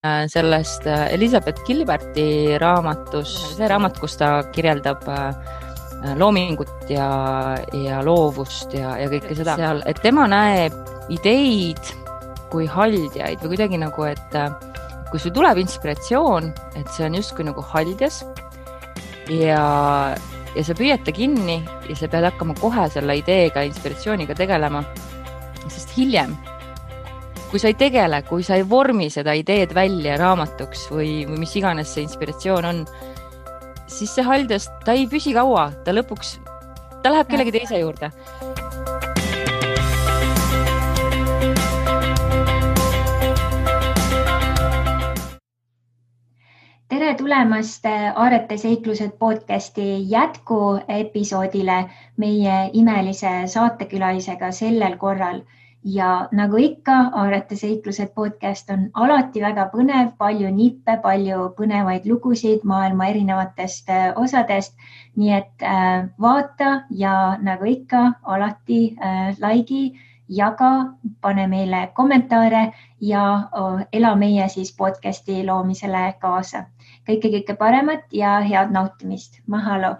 sellest Elizabeth Gilberti raamatus, see raamat, kus ta kirjeldab loomingut ja loovust ja kõike seda seal, et tema näeb ideid kui haldjaid või kuidagi nagu, et kui sul tuleb inspiratsioon, et see on justkui nagu haldjas ja sa püüad ta kinni ja sa pead hakkama kohe selle ideega, inspiratsiooniga tegelema, sest hiljem kui sa ei tegele, kui sa ei vormi seda ideed välja raamatuks või mis iganes see inspiratsioon on, siis see haldjas, ta ei püsi kaua, ta lõpuks, ta läheb kellegi teise juurde. Tere tulemast Aarete seiklused podcasti jätkuepisoodile meie imelise saatekülalisega sellel korral. Ja nagu ikka, Aarete seiklused podcast on alati väga põnev, palju nippe, palju põnevaid lugusid maailma erinevatest osadest. Nii et vaata ja nagu ikka, alati laigi, jaga, pane meile kommentaare ja ela meie siis podcasti loomisele kaasa. Kõike paremat ja head nautimist. Mahalo!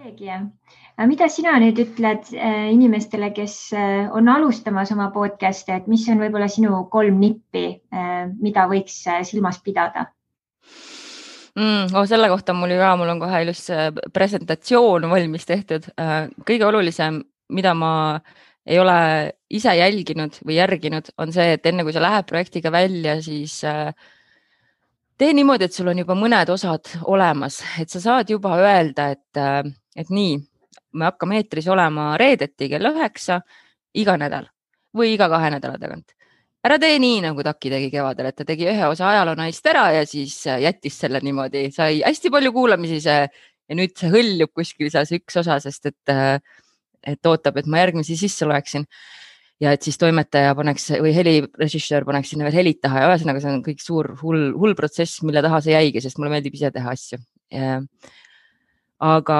Mida sina nüüd ütled inimestele, kes on alustamas oma podcasti, et mis on võib-olla sinu 3 nippi, mida võiks silmas pidada? Selle kohta mul on kohe ilus presentatsioon valmis tehtud. Kõige olulisem, mida ma ei ole ise jälginud või järginud, on see, et enne kui sa lähed projektiga välja, siis tee niimoodi, et sul on juba mõned osad olemas, et sa saad juba öelda, et nii, me hakkame eetris olema reedeti kell 9 iga nädal või iga 2 nädala tagant. Ära tee nii, nagu Taki tegi kevadel, et ta tegi ühe osa ajaloonaist ära ja siis jättis selle niimoodi. Sai hästi palju kuulamisi ja nüüd see hõljub kuskil see üks osa, sest et ootab, et ma järgmisi sisse loeksin. Ja et siis toimetaja paneks või helirežissöör paneks sinna veel helid taha ja ühesõnaga see on kõik suur hull protsess, mille taha see jäigi, sest mulle meeldib ise teha asju. Aga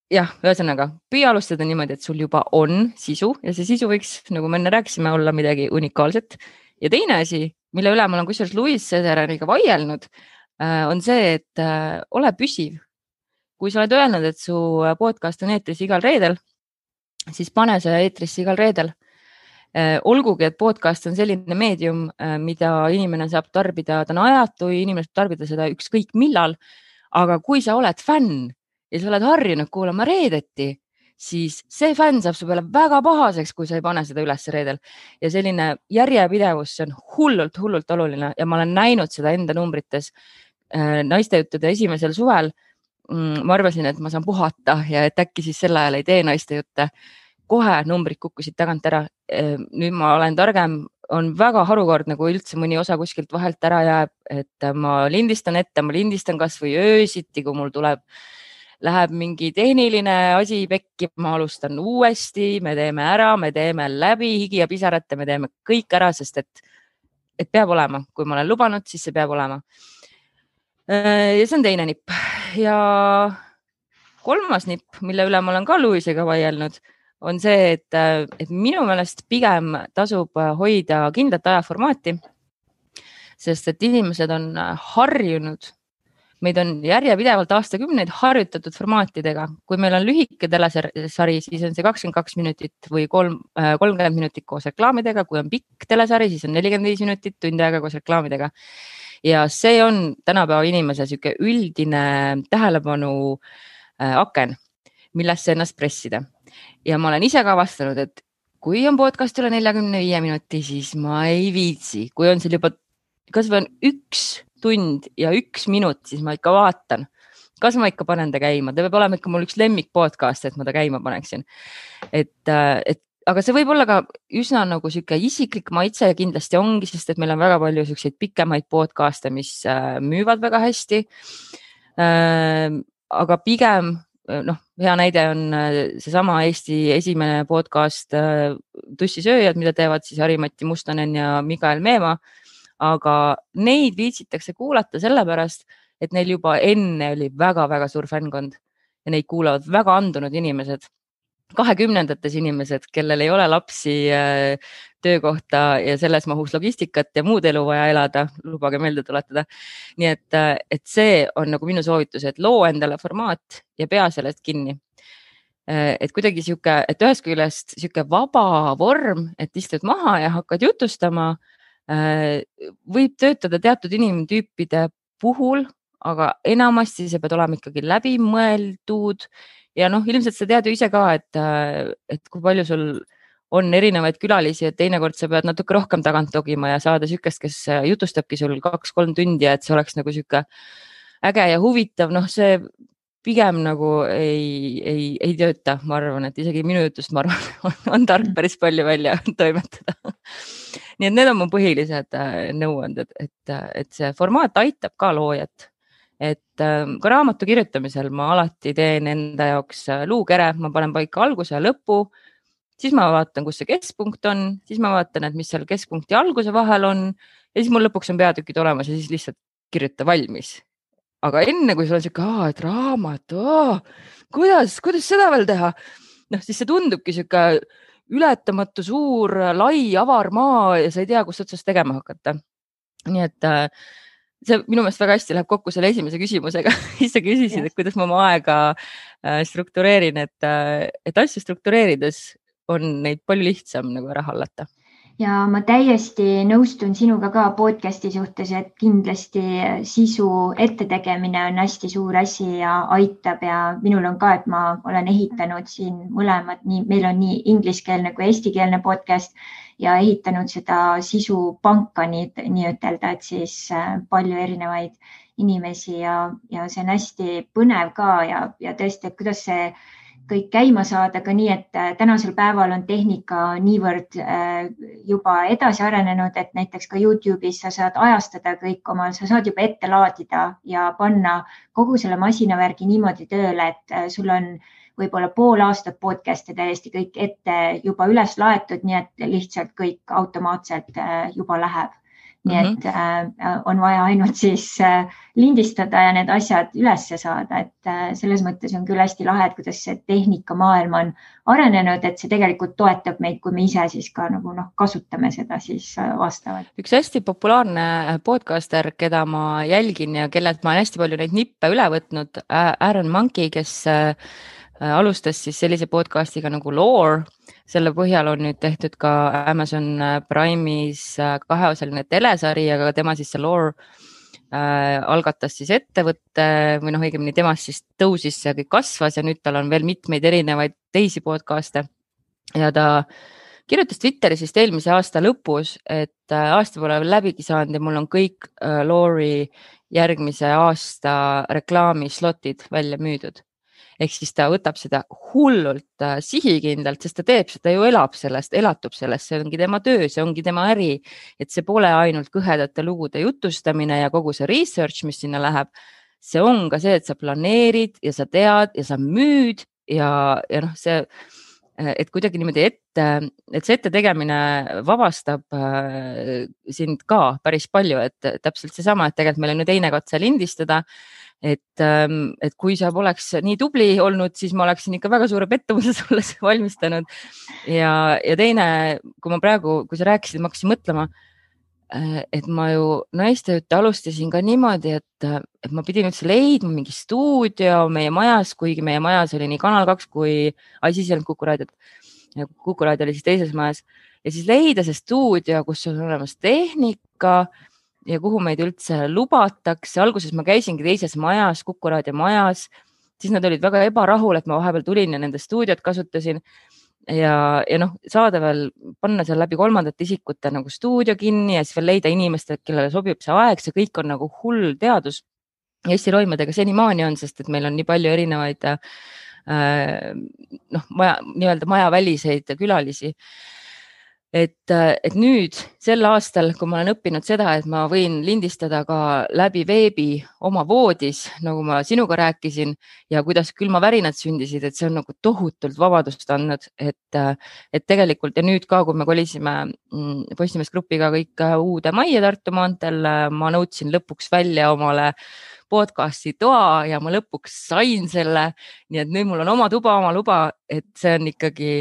jah, ühesõnaga, püüa alustada niimoodi, et sul juba on sisu ja see sisu võiks, nagu me enne rääkisime, olla midagi unikaalset. Ja teine asi, mille üle ma olen kusjuures Louis Cesareniga vaielnud, on see, et ole püsiv. Kui sa oled öelnud, et su podcast on eetris igal reedel, siis pane see eetrisse igal reedel. Olgugi, et podcast on selline meedium, mida inimene saab tarbida, ta on ajatu, inimene saab tarbida seda ükskõik millal, aga kui sa oled fänn, ja sa oled harjunud kuulama reedeti, siis see fänn saab su peale väga pahaseks, kui sa ei pane seda üles reedel. Ja selline järjepidevus, see on hullult oluline ja ma olen näinud seda enda numbrites naistejuttude esimesel suvel. Ma arvasin, et ma saan puhata ja et äkki siis sel ajal ei tee naistejutte. Kohe numbrid kukkusid tagant ära. Nüüd ma olen targem, on väga harukordne, kui üldse mõni osa kuskilt vahelt ära jääb, et ma lindistan ette, ma lindistan kas või öösiti, kui mul läheb mingi tehniline asi pekki, ma alustan uuesti, me teeme ära, me teeme läbi higi ja pisarate, me teeme kõik ära, sest et peab olema. Kui ma olen lubanud, siis see peab olema. Ja see on teine nipp. Ja 3. nipp, mille üle ma olen ka Louisega vaielnud, on see, et minu meelest pigem tasub hoida kindlat ajaformaati, sest et inimesed on harjunud. Meid on järjepidevalt aastakümneid harjutatud formaatidega. Kui meil on lühike telesari, siis on see 22 minutit või 30 minutit koos reklaamidega. Kui on pikk telesari, siis on 45 minutit, tund aega koos reklaamidega. Ja see on tänapäeva inimese süke üldine tähelepanu aken, millesse ennast pressida. Ja ma olen ise ka vastanud, et kui on podcast üle 45 minuti, siis ma ei viitsi. Kui on seal juba kas või on 1 tund ja 1 minut, siis ma ikka vaatan. Kas ma ikka panen ta käima? Ta peab olema ikka mul üks lemmik podcast, et ma ta käima paneksin. Aga see võib olla ka üsna nagu süke isiklik maitse ja kindlasti ongi, sest et meil on väga palju selliseid pikemaid podcaste, mis müüvad väga hästi. Aga pigem, hea näide on seesama Eesti esimene podcast Tussisööjad, mida teevad siis Harimati Mustonen ja Mikael Meemaa. Aga neid viitsitakse kuulata sellepärast, et neil juba enne oli väga-väga suur fänkond ja neid kuulavad väga andunud inimesed. 2020ndates inimesed, kellel ei ole lapsi, töökohta ja selles mahus logistikat ja muud elu vaja elada, lubage meelde tuletada. Nii et see on nagu minu soovitus, et loo endale formaat ja pea sellest kinni. Et kuidagi sihuke, et ühest küljest sihuke vaba vorm, et istud maha ja hakkad jutustama, võib töötada teatud inimtüüpide puhul, aga enamasti see peab olema ikkagi läbimõeldud. Ja ilmselt sa tead ju ise ka, et kui palju sul on erinevaid külalisi, et teinekord sa pead natuke rohkem tagant togima ja saada sükest, kes jutustabki sul 2-3 tundi, et see oleks nagu sihuke äge ja huvitav. See pigem nagu ei tööta, ma arvan, et isegi minu jutust, ma arvan, on tark päris palju välja toimetada. Nii et need on mu põhilised nõuanded, et see formaat aitab ka loojat. Et ka raamatu kirjutamisel ma alati teen enda jaoks luukere, ma panen paika alguse ja lõpu, siis ma vaatan, kus see keskpunkt on, siis ma vaatan, et mis seal keskpunkti alguse vahel on ja siis mul lõpuks on peatükid olemas ja siis lihtsalt kirjuta valmis. Aga enne, kui sul on siuke, et raamat, kuidas seda veel teha? Siis see tundubki siuke ületamatu suur, lai, avar maa ja sa ei tea, kust otsast tegema hakata. Nii et see minu meelest väga hästi läheb kokku selle esimese küsimusega. Siis sa küsisid, et kuidas ma oma aega struktureerin, et asju struktureerides on neid palju lihtsam nagu ära hallata. Ja ma täiesti nõustun sinuga ka podcasti suhtes, et kindlasti sisu ettetegemine on hästi suur asi ja aitab ja minul on ka, et ma olen ehitanud siin mõlemad, meil on nii ingliskeelne kui eestikeelne podcast ja ehitanud seda sisupanka nii ütelda, et siis palju erinevaid inimesi ja see on hästi põnev ka ja tõesti, et kuidas see kõik käima saada ka nii, et tänasel päeval on tehnika niivõrd juba edasi arenenud, et näiteks ka YouTube'is sa saad ajastada kõik sa saad juba ette laadida ja panna kogu selle masinavärgi niimoodi tööle, et sul on võib-olla pool aastat podcast'e täiesti kõik ette juba üles laetud, nii et lihtsalt kõik automaatselt juba läheb. Nii et on vaja ainult siis lindistada ja need asjad ülesse saada, et selles mõttes on küll hästi lahe, et kuidas see tehnikamaailm on arenenud, et see tegelikult toetab meid, kui me ise siis ka nagu kasutame seda siis vastavalt. Üks hästi populaarne podcaster, keda ma jälgin ja kellelt ma olen hästi palju neid nippe üle võtnud, Aaron Monkey, kes alustas siis sellise podcastiga nagu Lore. Selle põhjal on nüüd tehtud ka Amazon Prime'is 2-osaline telesari, aga tema siis see Lore algatas siis ettevõtte või õigemini temast siis tõusis ja kõik kasvas ja nüüd tal on veel mitmeid erinevaid teisi podcast'e. Ja ta kirjutas Twitteris vist eelmise aasta lõpus, et aasta pole veel läbigi saanud ja mul on kõik Lore'i järgmise aasta reklaamislotid välja müüdud. Ehk siis ta võtab seda hullult sihikindlalt, sest ta teeb seda, ju elab sellest, elatub sellest, see ongi tema töö, see ongi tema äri, et see pole ainult kõhedate lugude jutustamine ja kogu see research, mis sinna läheb. See on ka see, et sa planeerid ja sa tead ja sa müüd ja see, et kuidagi niimoodi et see ette tegemine vabastab sind ka päris palju, et täpselt seesama, et tegelikult meil on ju teine katse lindistada. Et kui sa poleks nii tubli olnud, siis ma oleksin ikka väga suure pettumuse sulle valmistanud. Ja teine, kui sa rääkisid, ma hakkasin mõtlema, et ma ju naistööd alustasin ka niimoodi, et ma pidin üldse leidma mingi stuudio meie majas, kuigi meie majas oli nii Kanal 2 kui siis ei olnud Kuku raadiot. Kuku raadio oli siis teises majas ja siis leida see stuudio, kus on olemas tehnika ja kuhu meid üldse lubatakse. Alguses ma käisingi teises majas, Kuku raadio majas, siis nad olid väga ebarahul, et ma vahepeal tulin ja nende stuudiot kasutasin ja saada veel, panna seal läbi kolmandate isikute nagu stuudio kinni ja siis veel leida inimestele, kellele sobib see aeg, see kõik on nagu hull teadus. Ja Eesti Roimadega senimaani on, sest et meil on nii palju erinevaid nii-öelda majaväliseid külalisi. et nüüd sel aastal, kui ma olen õppinud seda, et ma võin lindistada ka läbi veebi oma voodis, nagu ma sinuga rääkisin ja kuidas külmavärinad sündisid, et see on nagu tohutult vabadust andnud, et tegelikult ja nüüd ka, kui me kolisime Postimees Grupiga kõik uude majja Tartu maanteel, ma nõudsin lõpuks välja omale podcasti toa ja ma lõpuks sain selle. Nii et nüüd mul on oma tuba, oma luba, et see on ikkagi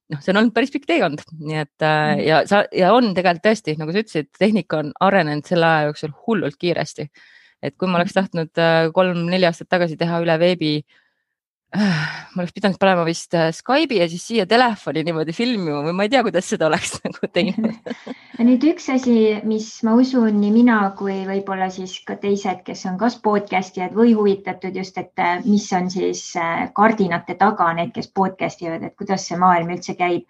see on olnud päris pikk teekond, nii et ja on tegelikult tõesti, nagu sa ütlesid, tehnika on arenenud selle aja jooksul hullult kiiresti. Et kui ma oleks tahtnud 3-4 aastat tagasi teha üle veebi, ma oleks pidanud panema vist Skype'i ja siis siia telefoni niimoodi filmima või ma ei tea, kuidas seda oleks nagu teinud. Nüüd üks asi, mis ma usun nii mina kui võib-olla siis ka teised, kes on kas podcastijad või huvitatud just, et mis on siis kardinate taga, need, kes podcastivad, et kuidas see maailm üldse käib.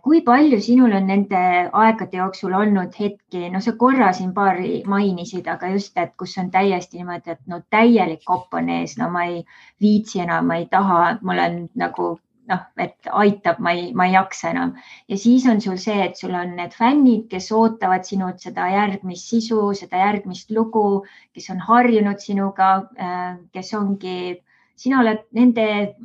Kui palju sinul on nende aegade jooksul olnud hetki, no sa korra siin paari mainisid, aga just, et kus on täiesti niimoodi, et no täielik kopp on ees, no ma ei viitsi enam, ma ei taha, mul on nagu et aitab, ma ei jaksa enam. Ja siis on sul see, et sul on need fännid, kes ootavad sinult seda järgmist sisu, seda järgmist lugu, kes on harjunud sinuga, kes ongi, sina oled nende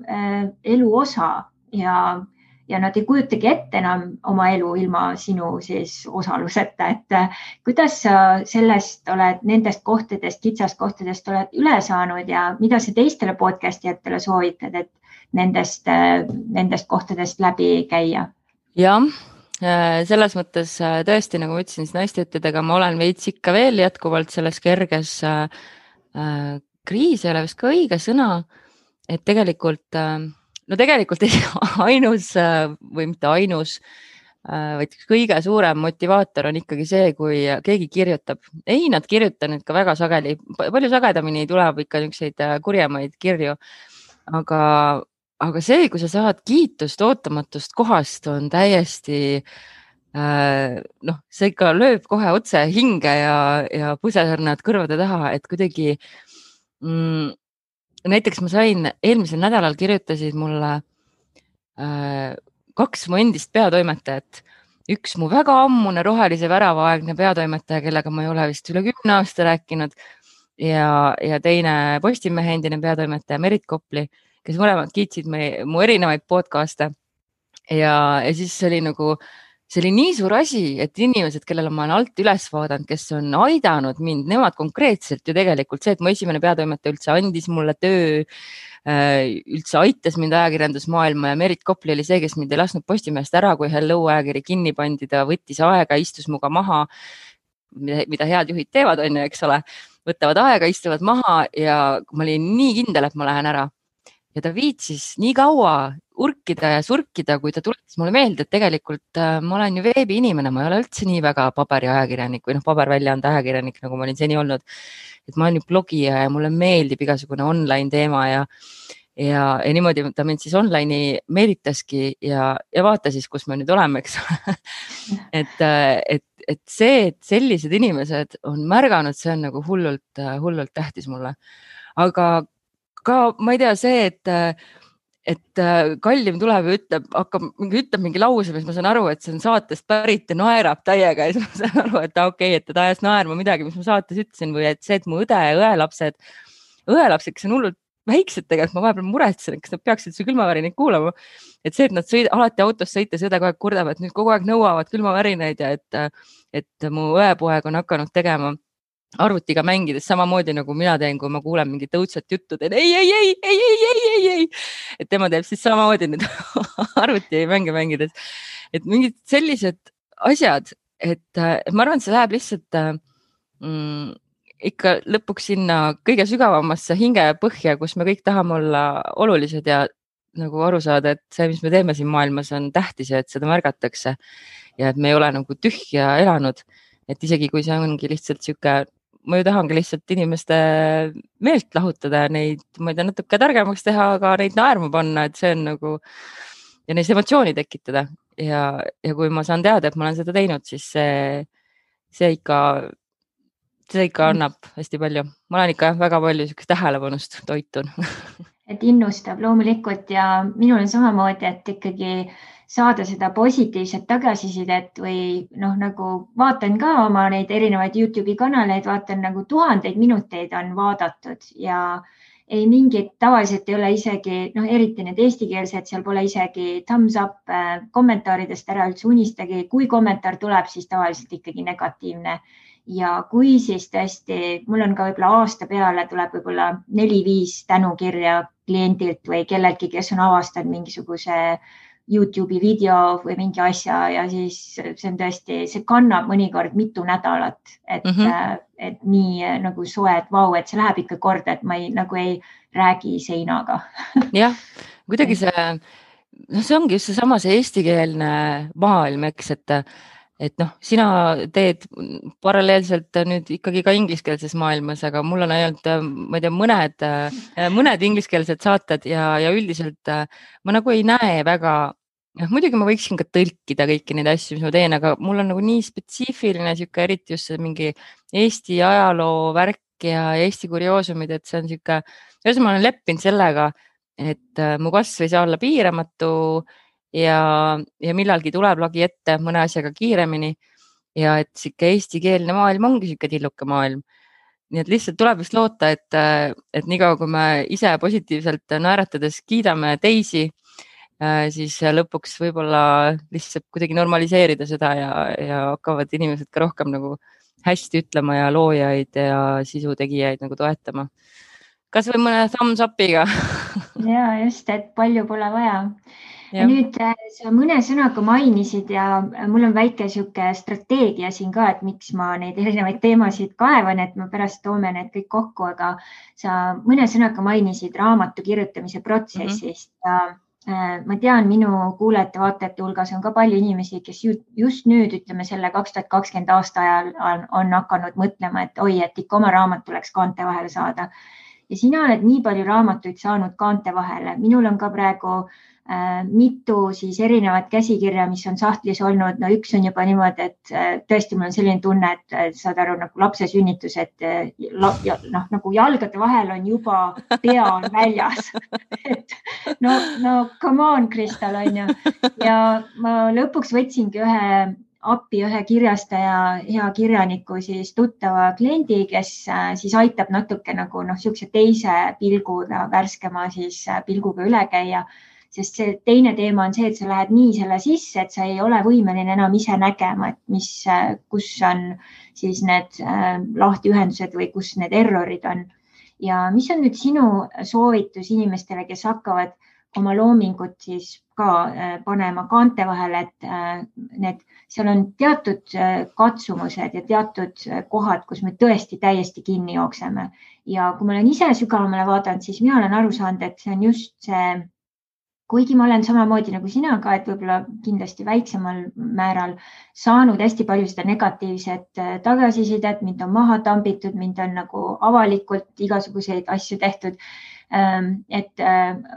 elu osa ja nad ei kujutagi ette enam oma elu ilma sinu siis osaluseta, et kuidas sa sellest oled, nendest kohtadest, kitsast kohtadest oled üle saanud ja mida sa teistele podcastijatele soovitad, et nendest kohtadest läbi käia? Jah, selles mõttes tõesti, nagu ma ütlesin, siis naistejõuttidega ma olen veits ikka veel jätkuvalt selles kerges kriis ei ole vist ka õige sõna, et tegelikult ainus või mitte ainus, vaid kõige suurem motivaator on ikkagi see, kui keegi kirjutab. Ei, nad kirjutavad ka väga sageli, palju sagedamini tuleb ikka niisuguseid kurjemaid kirju, aga see, kui sa saad kiitust ootamatust kohast, on täiesti, see ikka lööb kohe otse hinge ja pusesarnad kõrvade taha, et kuidagi näiteks ma sain eelmisel nädalal kirjutasid mulle 2 mu endist peatoimetajat. Üks mu väga ammune rohelise värava-aegne peatoimetaja, kellega ma ei ole vist üle 10 aasta rääkinud ja teine Postimehe endine peatoimetaja Merit Kopli, kes mõlemad kiitsid mu erinevaid podcast'e ja siis see oli nii suur asi, et inimesed, kellele ma olen alt üles vaadanud, kes on aidanud mind, nemad konkreetselt ju tegelikult see, et mu esimene peatoimetaja üldse andis mulle töö, üldse aitas mind ajakirjandusmaailma ja Merit Kopli oli see, kes mind ei lasknud Postimehest ära, kui Hello ajakiri kinni pandi, ta võttis aega, istus muga maha, mida head juhid teevad, on ju, eks ole, võtavad aega, istuvad maha ja ma olin nii kindel, et ma lähen ära. Ja ta viitsis nii kaua urkida ja surkida, kui ta tuletas mulle meelde, et tegelikult ma olen ju veebi inimene, ma ei ole üldse nii väga paberiajakirjanik või paberväljaande ajakirjanik, nagu ma olin seni olnud. Et ma olen ju blogija ja mulle meeldib igasugune online teema ja niimoodi ta mind siis online'i meelitaski ja vaata siis, kus me nüüd oleme, eks. et see, et sellised inimesed on märganud, see on nagu hullult tähtis mulle. Aga ka ma ei tea see, et Kallim tuleb ja ütleb mingi lause, mis ma saan aru, et see on saatest pärit ja naerab täiega ja siis ma saan aru, et okei, et ta ajas naerma midagi, mis ma saates ütlesin või et see, et mu õde ja õelapsed, kes on hullult väiksed tegelikult, ma vahepeal muretsen, kas nad peaksid su külmavärinaid kuulama. Et see, et nad alati autos sõites õde kogu aeg kurdab, et nüüd kogu aeg nõuavad külmavärinaid ja et mu õepoeg on hakanud tegema arvutiga mängides samamoodi nagu mina teen, kui ma kuulen mingit õudsat juttu, teen ei. Et tema teeb siis samamoodi nüüd arvuti mänge mängides. Et mingid sellised asjad, et ma arvan, et see läheb lihtsalt ikka lõpuks sinna kõige sügavamasse hingepõhja, kus me kõik tahame olla olulised ja nagu aru saada, et see, mis me teeme siin maailmas, on tähtis ja et seda märgatakse ja et me ei ole nagu tühja elanud. Et isegi kui see ongi lihtsalt sihuke, ma ju tahangi lihtsalt inimeste meelt lahutada ja neid, ma ei tea, natuke targemaks teha, aga neid naerma panna, et see on nagu ja neis emotsiooni tekitada ja kui ma saan teada, et ma olen seda teinud, siis see ikka annab hästi palju. Ma olen ikka väga palju tähelepanust toitun. Et innustab loomulikult ja minul on samamoodi, et ikkagi saada seda positiivset tagasisidet või noh, nagu vaatan ka oma neid erinevaid Youtube'i kanaleid, vaatan nagu tuhandeid minuteid on vaadatud ja ei mingit, tavaliselt ei ole isegi, noh, eriti need eestikeelsed, seal pole isegi thumbs up kommentaaridest ära üldse unistagi. Kui kommentaar tuleb, siis tavaliselt ikkagi negatiivne. Ja kui siis tõesti, mul on ka võib-olla aasta peale tuleb võib-olla 4-5 tänukirja kliendilt või kellelgi, kes on avastanud mingisuguse Youtube'i video või mingi asja ja siis see on tõesti, see kannab mõnikord mitu nädalat, et nii nagu soe, et vau, et see läheb ikka korda, et ma nagu ei räägi seinaga. Jah, kuidagi see, noh, see ongi just seesama see eestikeelne maailm, eks, et noh, sina teed paralleelselt nüüd ikkagi ka ingliskeelses maailmas, aga mul on ainult, ma ei tea, mõned ingliskeelsed saated ja üldiselt ma nagu ei näe väga, muidugi ma võiksin ka tõlkida kõiki neid asju, mis ma teen, aga mul on nagu nii spetsiifiline sihuke, eriti just see mingi Eesti ajaloo värk ja Eesti kurioosumid, et see on sihuke, ühesõnaga ma olen leppinud sellega, et mu kasv ei saa olla piiramatu ja millalgi tuleb lagi ette mõne asjaga kiiremini ja et sihuke eestikeelne maailm ongi sihuke tilluke maailm. Nii et lihtsalt tuleb vist loota, et niikaua kui me ise positiivselt naeratades kiidame teisi, siis lõpuks võib-olla lihtsalt kuidagi normaliseerida seda ja hakkavad inimesed ka rohkem nagu hästi ütlema ja loojaid ja sisutegijaid nagu toetama. Kas või mõne thumbs up'iga? Ja just, et palju pole vaja. Ja nüüd sa mõne sõnaga mainisid ja mul on väike sihuke strateegia siin ka, et miks ma neid erinevaid teemasid kaevan, et ma pärast toome need kõik kokku, aga sa mõne sõnaga mainisid raamatu kirjutamise protsessist ja ma tean, minu kuulajate-vaatajate hulgas on ka palju inimesi, kes just nüüd, ütleme selle 2020 aasta ajal on hakanud mõtlema, et oi, et ikka oma raamat tuleks kaante vahele saada. Ja sina oled nii palju raamatuid saanud kaante vahele. Minul on ka praegu mitu siis erinevat käsikirja, mis on sahtlis olnud. No üks on juba niimoodi, et tõesti mul on selline tunne, et saad aru nagu lapse sünnitus, et nagu jalgade vahel on juba pea on väljas. Et no come on, Kristal, on ju. Ja ma lõpuks võtsingi ühe kirjastaja, hea kirjaniku siis tuttava kliendi, kes siis aitab natuke nagu siukse teise pilguga, värskema siis pilguga üle käia. Sest see teine teema on see, et sa lähed nii selle sisse, et sa ei ole võimeline enam ise nägema, et kus on siis need lahtiühendused või kus need errorid on. Ja mis on nüüd sinu soovitus inimestele, kes hakkavad oma loomingut siis ka panema kaante vahele, et seal on teatud katsumused ja teatud kohad, kus me tõesti täiesti kinni jookseme. Ja kui ma olen ise sügavamale vaadanud, siis mina olen aru saanud, et see on just see, kuigi ma olen samamoodi nagu sina ka, et võib-olla kindlasti väiksemal määral saanud hästi palju seda negatiivset tagasisidet, mind on maha tambitud, mind on nagu avalikult igasuguseid asju tehtud, et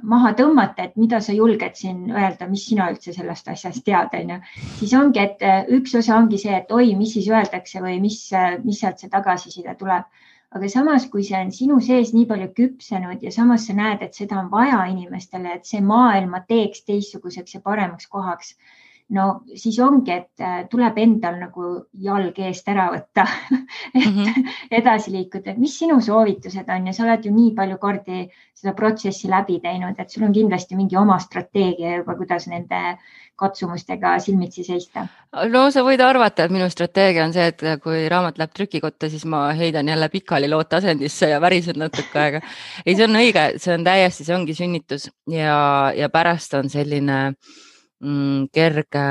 maha tõmmata, et mida sa julged siin öelda, mis sina üldse sellest asjast tead, on ju. Siis ongi, et üks osa ongi see, et oi, mis siis öeldakse või mis sealt see tagasiside tuleb. Aga samas, kui see on sinu sees nii palju küpsenud ja samas sa näed, et seda on vaja inimestele, et see maailma teeks teistsuguseks ja paremaks kohaks, no siis ongi, et tuleb endal nagu jalg eest ära võtta, et edasi liikuda. Mis sinu soovitused on ja sa oled ju nii palju kordi seda protsessi läbi teinud, et sul on kindlasti mingi oma strateegia juba, kuidas nende katsumustega silmitsi seista. No sa võid arvata, et minu strateegia on see, et kui raamat läheb trükikotta, siis ma heidan jälle pikali looteasendisse ja värisen natuke aega. Ei, see on õige, see on täiesti, see ongi sünnitus ja pärast on selline kerge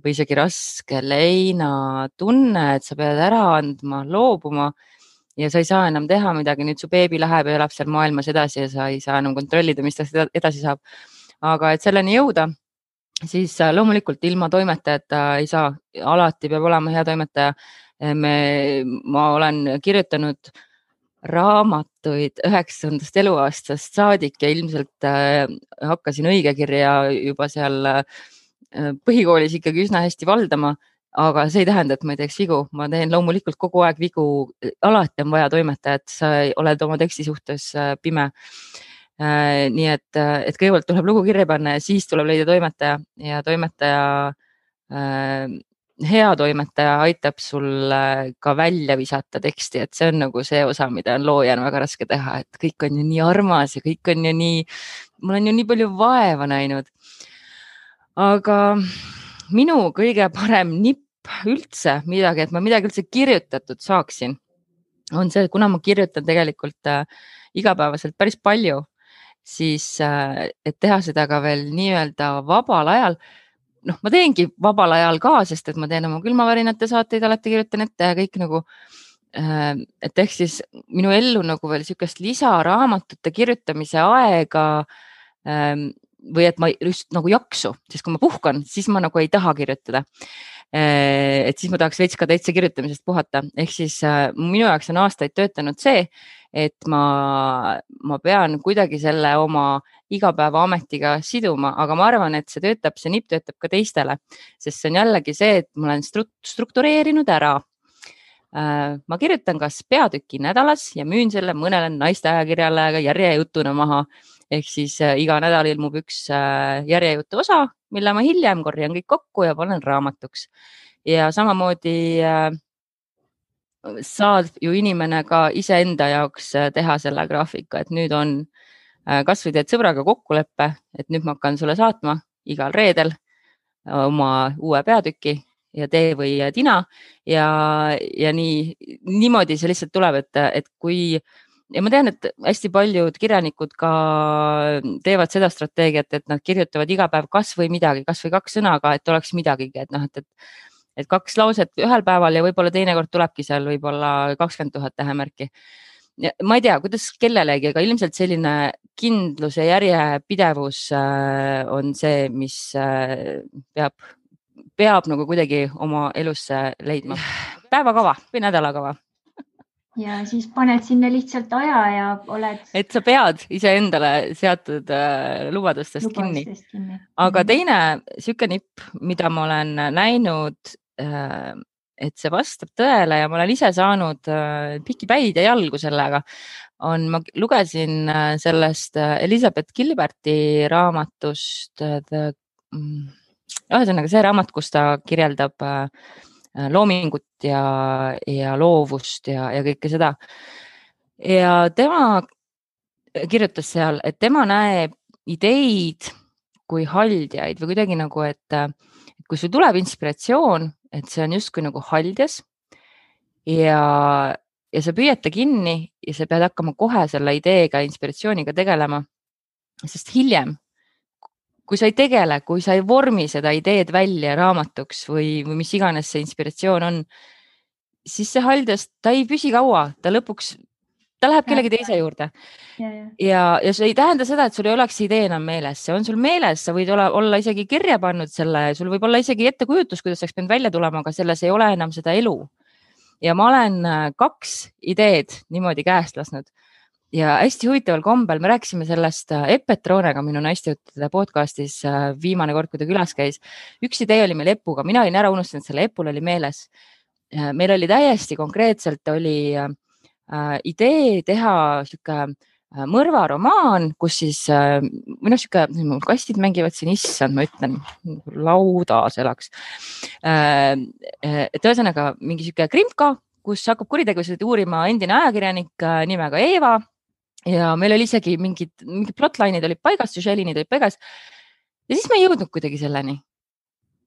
või isegi raske leinatunne, et sa pead ära andma, loobuma ja sa ei saa enam teha midagi. Nüüd su beebi läheb ja elab seal maailmas edasi ja sa ei saa enam kontrollida, mis ta edasi saab. Aga et selleni jõuda, siis loomulikult ilma toimetajata ei saa. Alati peab olema hea toimetaja. Ma olen kirjutanud raamatuid 9. eluaastast saadik ja ilmselt hakkasin õigekirja juba seal põhikoolis ikkagi üsna hästi valdama, aga see ei tähenda, et ma ei teeks vigu. Ma teen loomulikult kogu aeg vigu. Alati on vaja toimetajat, sa oled oma teksti suhtes pime. Nii et kõigepealt tuleb lugu kirja panna ja siis tuleb leida toimetaja ja hea toimetaja aitab sul ka välja visata teksti, et see on nagu see osa, mida on loojana väga raske teha, et kõik on ju nii armas ja kõik on ju nii, ma olen ju nii palju vaeva näinud. Aga minu kõige parem nipp üldse midagi, et ma midagi üldse kirjutatud saaksin, on see, kuna ma kirjutan tegelikult igapäevaselt päris palju, siis et teha seda ka veel nii-öelda vabal ajal. Ma teengi vabal ajal ka, sest et ma teen oma külmavärinate saateid, alati kirjutan ette ja kõik nagu, et ehk siis minu ellu nagu veel sükest lisaraamatute kirjutamise aega või et ma just nagu jaksu, sest kui ma puhkan, siis ma nagu ei taha kirjutada. Et siis ma tahaks veits ka täitsa kirjutamisest puhata. Ehk siis minu jaoks on aastaid töötanud see, et ma pean kuidagi selle oma igapäeva ametiga siduma, aga ma arvan, et see nipp töötab ka teistele, sest see on jällegi see, et ma olen struktureerinud ära. Ma kirjutan kas peatüki nädalas ja müün selle mõnele naiste ajakirjale järjejutuna maha. Ehk siis iga nädal ilmub üks järjejutu osa, mille ma hiljem korjan kõik kokku ja panen raamatuks. Ja samamoodi saad ju inimene ka iseenda jaoks teha selle graafika, et nüüd on kasvõi teed sõbraga kokkuleppe, et nüüd ma hakkan sulle saatma igal reedel oma uue peatüki ja tee või tina ja niimoodi see lihtsalt tuleb, et kui ja ma tean, et hästi paljud kirjanikud ka teevad seda strateegiat, et nad kirjutavad iga päev kasvõi midagi, kasvõi 2 sõnaga, et oleks midagigi, et 2 lauset ühel päeval ja võib-olla teinekord tulebki seal võib-olla 20 000 tähemärki. Ma ei tea, kuidas kellelegi, aga ilmselt selline kindlus ja järjepidevus on see, mis peab nagu kuidagi oma elusse leidma. Päevakava või nädalakava. Ja siis paned sinna lihtsalt aja ja oled... Et sa pead iseendale seatud lubadustest kinni. Aga teine süke nipp, mida ma olen näinud, et see vastab tõele ja ma olen ise saanud pikipäid ja jalgu sellega, ma lugesin sellest Elizabeth Gilberti raamatust, ühesõnaga see raamat, kus ta kirjeldab loomingut ja loovust ja kõike seda. Ja tema kirjutas seal, et tema näeb ideid kui haldjaid või kuidagi nagu, et kui sul tuleb inspiratsioon, et see on justkui nagu haldjas ja sa püüad ta kinni ja sa pead hakkama kohe selle ideega, inspiratsiooniga tegelema, sest hiljem, kui sa ei tegele, kui sa ei vormi seda ideed välja raamatuks või mis iganes see inspiratsioon on, siis see haldjas, ta ei püsi kaua, ta lõpuks, ta läheb kellegi teise juurde. Ja see ei tähenda seda, et sul ei oleks idee enam meeles, see on sul meeles, sa võid olla isegi kirja pannud selle, sul võib olla isegi ettekujutus, kuidas oleks pidanud välja tulema, aga selles ei ole enam seda elu. Ja ma olen 2 ideed niimoodi käest lasknud ja hästi huvitaval kombel, me rääkisime sellest Epetroonega minu naistejuttude podcastis viimane kord, kui ta külas käis. Üks idee oli meil Epuga, mina olin ära unustanud, selle Epul oli meeles. Meil oli täiesti konkreetselt oli idee teha siuke mõrvaromaan, kus siis siuke kastid mängivad siin, issand, ma ütlen, laudas elaks. Et ühesõnaga mingi siuke krimka, kus hakkab kuritegusid uurima endine ajakirjanik nimega Eeva ja meil oli isegi mingid plotline'id olid paigas, süžeeliinid olid paigas ja siis me ei jõudnud kuidagi selleni.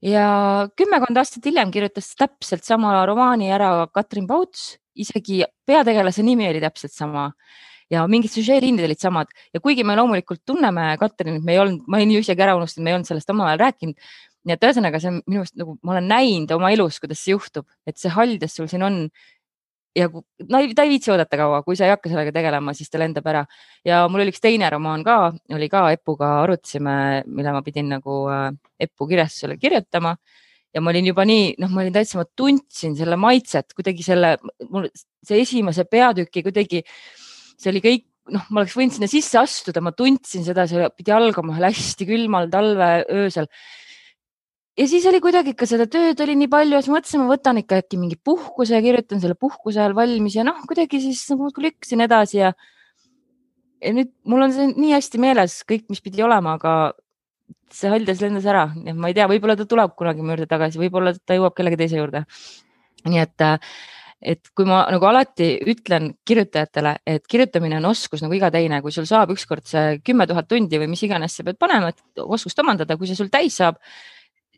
Ja 10 aastat hiljem kirjutas täpselt sama romaani ära Katrin Pauts, isegi peategelase nimi oli täpselt sama ja mingid süžeeliinid olid samad ja kuigi me loomulikult tunneme Katrinit, ma olin ju isegi ära unustanud, me ei olnud sellest omavahel rääkinud. Nii et ühesõnaga see on minu arust nagu ma olen näinud oma elus, kuidas see juhtub, et see haldjas sul siin on ja ta ei viitsi oodata kaua, kui sa ei hakka sellega tegelema, siis ta lendab ära. Ja mul oli üks teine romaan ka, oli ka Epuga arutasime, mille ma pidin nagu Epu kirjastusele kirjutama ja ma olin juba nii, ma olin täitsa, ma tundsin selle maitset, kuidagi see esimese peatüki kuidagi, see oli kõik, ma oleks võinud sinna sisse astuda, ma tundsin seda, see pidi algama hästi külmal talve öösel. Ja siis oli kuidagi ikka seda tööd oli nii palju, ja siis mõtlesin, ma võtan ikka äkki mingi puhkuse ja kirjutan selle puhkuse ajal valmis ja kuidagi siis lükkasin edasi ja ja nüüd mul on see nii hästi meeles kõik, mis pidi olema, aga see haljas lendas ära. Ma ei tea, võib-olla ta tuleb kunagi mu juurde tagasi, võib-olla ta jõuab kellegi teise juurde. Nii et kui ma nagu alati ütlen kirjutajatele, et kirjutamine on oskus nagu iga teine, kui sul saab ükskord see 10 000 tundi või mis iganes sa pead panema, et oskust omandada, kui see sul täis saab,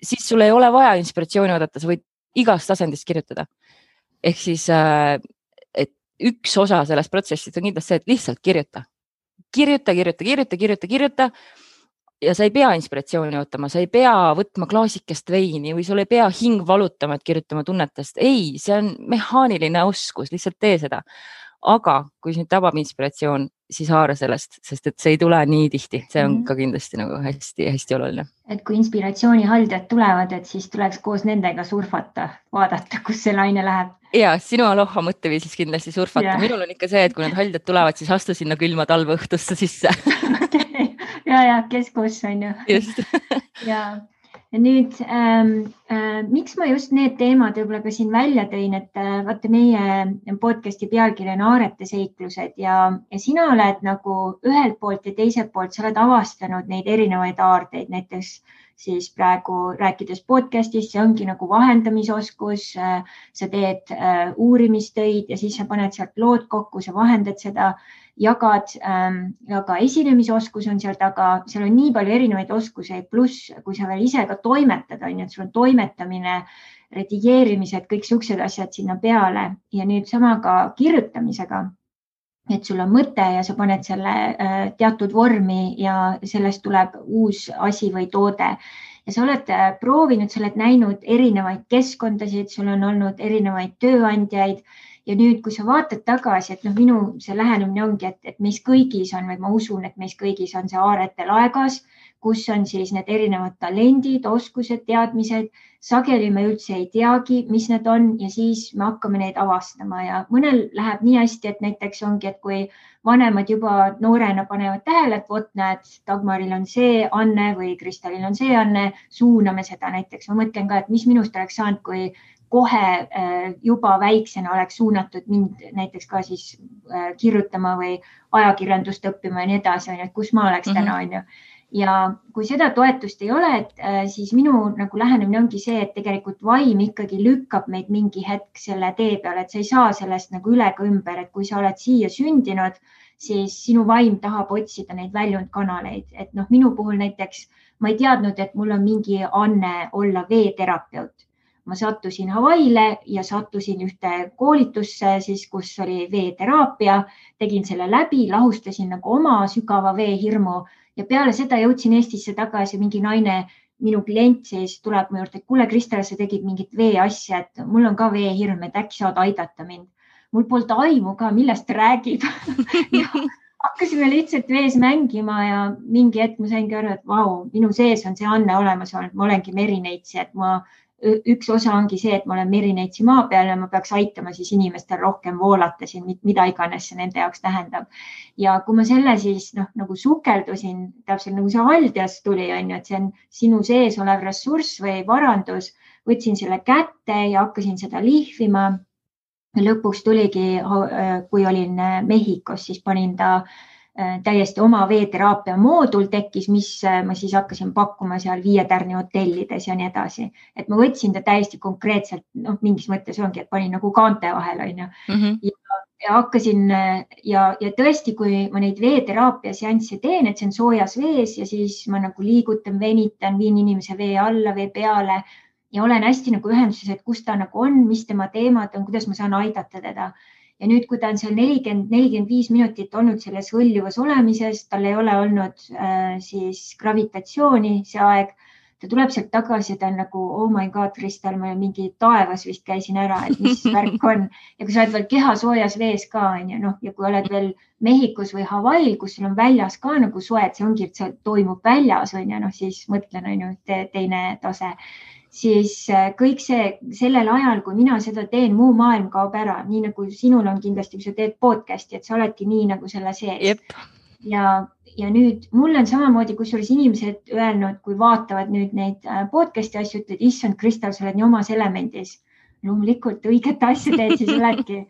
siis sul ei ole vaja inspiratsiooni oodata, sa võid igast asendist kirjutada. Ehk siis, et üks osa sellest protsessist on kindlasti see, et lihtsalt kirjuta ja sa ei pea inspiratsiooni ootama, sa ei pea võtma klaasikest veini või sul ei pea hing valutama, et kirjutama tunnetest. Ei, see on mehaaniline oskus, lihtsalt tee seda. Aga kui sind tabab inspiratsioon, siis haara sellest, sest et see ei tule nii tihti. See on ka kindlasti nagu hästi oluline. Et kui inspiratsiooni haldjad tulevad, et siis tuleks koos nendega surfata, vaadata, kus see laine läheb. Ja, sinu aloha mõtteviisis kindlasti surfata. Minul on ikka see, et kui need haldjad tulevad, siis astu sinna külma talveõhtusse sisse. Ja, kes kus on ju. Just. Ja nüüd, miks ma just need teemad võib-olla ka siin välja tõin, et vaata meie podcasti pealkiri on Aarete seiklused ja sina oled nagu ühelt poolt ja teiselt poolt, sa oled avastanud neid erinevaid aardeid, näiteks siis praegu rääkides podcastist, see ongi nagu vahendamisoskus, sa teed uurimistöid ja siis sa paned sealt lood kokku, sa vahendad seda, jagad, aga esinemisoskus on seal taga, seal on nii palju erinevaid oskuseid, pluss kui sa veel ise ka toimetad, on ju, et sul on toimetamine, redigeerimised, kõik siuksed asjad sinna peale ja nüüd sama ka kirjutamisega, et sul on mõte ja sa paned selle teatud vormi ja sellest tuleb uus asi või toode. Ja sa oled proovinud, sa oled näinud erinevaid keskkondasid, sul on olnud erinevaid tööandjaid ja nüüd, kui sa vaatad tagasi, et minu see lähenemine ongi, et meis kõigis on, või ma usun, et meis kõigis on see Aarete laegas, kus on siis need erinevad talendid, oskused, teadmised. Sageli me üldse ei teagi, mis need on ja siis me hakkame neid avastama ja mõnel läheb nii hästi, et näiteks ongi, et kui vanemad juba noorena panevad tähele, et vot näed, Dagmaril on see Anne või Kristalil on see Anne, suuname seda näiteks. Ma mõtlen ka, et mis minust oleks saanud, kui kohe juba väiksena oleks suunatud mind näiteks ka siis kirjutama või ajakirjandust õppima ja nii edasi, et kus ma oleks täna, on ju. Ja kui seda toetust ei ole, siis minu nagu lähenemine ongi see, et tegelikult vaim ikkagi lükkab meid mingi hetk selle tee peale, et sa ei saa sellest nagu üle ka ümber, et kui sa oled siia sündinud, siis sinu vaim tahab otsida neid väljundkanaleid. Et minu puhul näiteks ma ei teadnud, et mul on mingi anne olla veeterapeut. Ma sattusin Hawaiile ja sattusin ühte koolitusse, siis, kus oli veeteraapia, tegin selle läbi, lahustasin nagu oma sügava veehirmu ja peale seda jõudsin Eestisse tagasi, mingi naine, minu klient siis tuleb mu juurde, et kuule Kristel, sa tegid mingit veeasja, et mul on ka veehirm, et äkki saad aidata mind. Mul polnud aimu ka, millest räägib. Ja hakkasime lihtsalt vees mängima ja mingi hetk ma saingi aru, et vau, minu sees on see Anne olemas olnud, ma olengi merineitsi, et üks osa ongi see, et ma olen merineitsi maa peal ja ma peaks aitama siis inimestel rohkem voolata siin, mida iganes see nende jaoks tähendab. Ja kui ma selle siis nagu sukeldusin, täpselt nagu see haldjas tuli, on ju, et see on sinu sees olev ressurss või varandus, võtsin selle kätte ja hakkasin seda lihvima. Lõpuks tuligi, kui olin Mehhikos, siis panin ta täiesti oma veeteraapia moodul tekkis, mis ma siis hakkasin pakkuma seal 5-tärni hotellides ja nii edasi. Et ma võtsin ta täiesti konkreetselt, mingis mõttes ongi, et panin nagu kaante vahel, on ju. Ja hakkasin ja tõesti, kui ma neid veeteraapia seansse teen, et see on soojas vees ja siis ma nagu liigutan, venitan, viin inimese vee alla, vee peale ja olen hästi nagu ühenduses, et kus ta nagu on, mis tema teemad on, kuidas ma saan aidata teda. Ja nüüd, kui ta on seal 40-45 minutit olnud selles hõljuvas olemises, tal ei ole olnud siis gravitatsiooni see aeg, ta tuleb sealt tagasi ja ta on nagu, oh my god, Kristel, ma mingi taevas vist käisin ära, et mis värk on. Ja kui sa oled veel keha soojas vees ka, on ju, ja kui oled veel Mehhikos või Hawaiil, kus sul on väljas ka nagu soe, et see ongi, et see toimub väljas, on ju, siis mõtlen, on ju, teine tase. Siis kõik see sellel ajal, kui mina seda teen, muu maailm kaob ära, nii nagu sinul on kindlasti, kui sa teed podcasti, et sa oledki nii nagu selle sees. Jep. Ja nüüd mul on samamoodi, kusjuures inimesed öelnud, kui vaatavad nüüd neid podcasti asju, ütled, issand, Kristel, sa oled nii omas elemendis. Loomulikult õiget asja teed, siis oledki.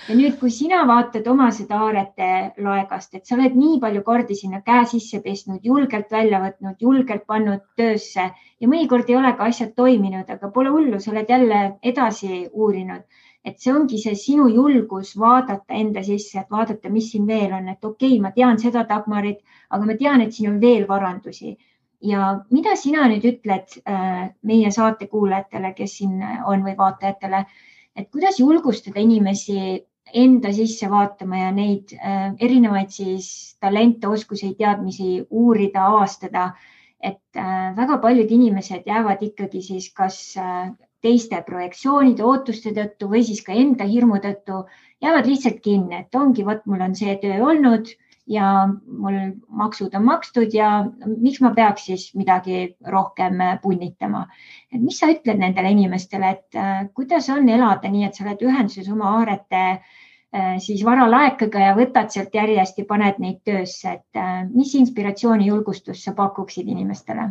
Ja nüüd, kui sina vaatad oma seda aarete laegast, et sa oled nii palju kordi sinna käe sisse pestnud, julgelt välja võtnud, julgelt pannud töösse ja mõnikord ei ole ka asjad toiminud, aga pole hullu, sa oled jälle edasi uurinud. Et see ongi see sinu julgus vaadata enda sisse, et vaadata, mis siin veel on, et okei, ma tean seda Dagmarit, aga ma tean, et siin on veel varandusi. Ja mida sina nüüd ütled meie saate kuulajatele, kes siin on või vaatajatele, et kuidas julgustada inimesi enda sisse vaatama ja neid erinevaid siis talente, oskusi, teadmisi uurida, avastada, et väga paljud inimesed jäävad ikkagi siis kas teiste projektsioonide, ootuste tõttu või siis ka enda hirmu tõttu jäävad lihtsalt kinni, et ongi, vot mul on see töö olnud ja mul maksud on makstud ja miks ma peaks siis midagi rohkem punnitama. Et mis sa ütled nendele inimestele, et kuidas on elada nii, et sa oled ühenduses oma aarete siis varalaekaga ja võtad sealt järjest ja paned neid töösse, et mis inspiratsiooni, julgustust sa pakuksid inimestele?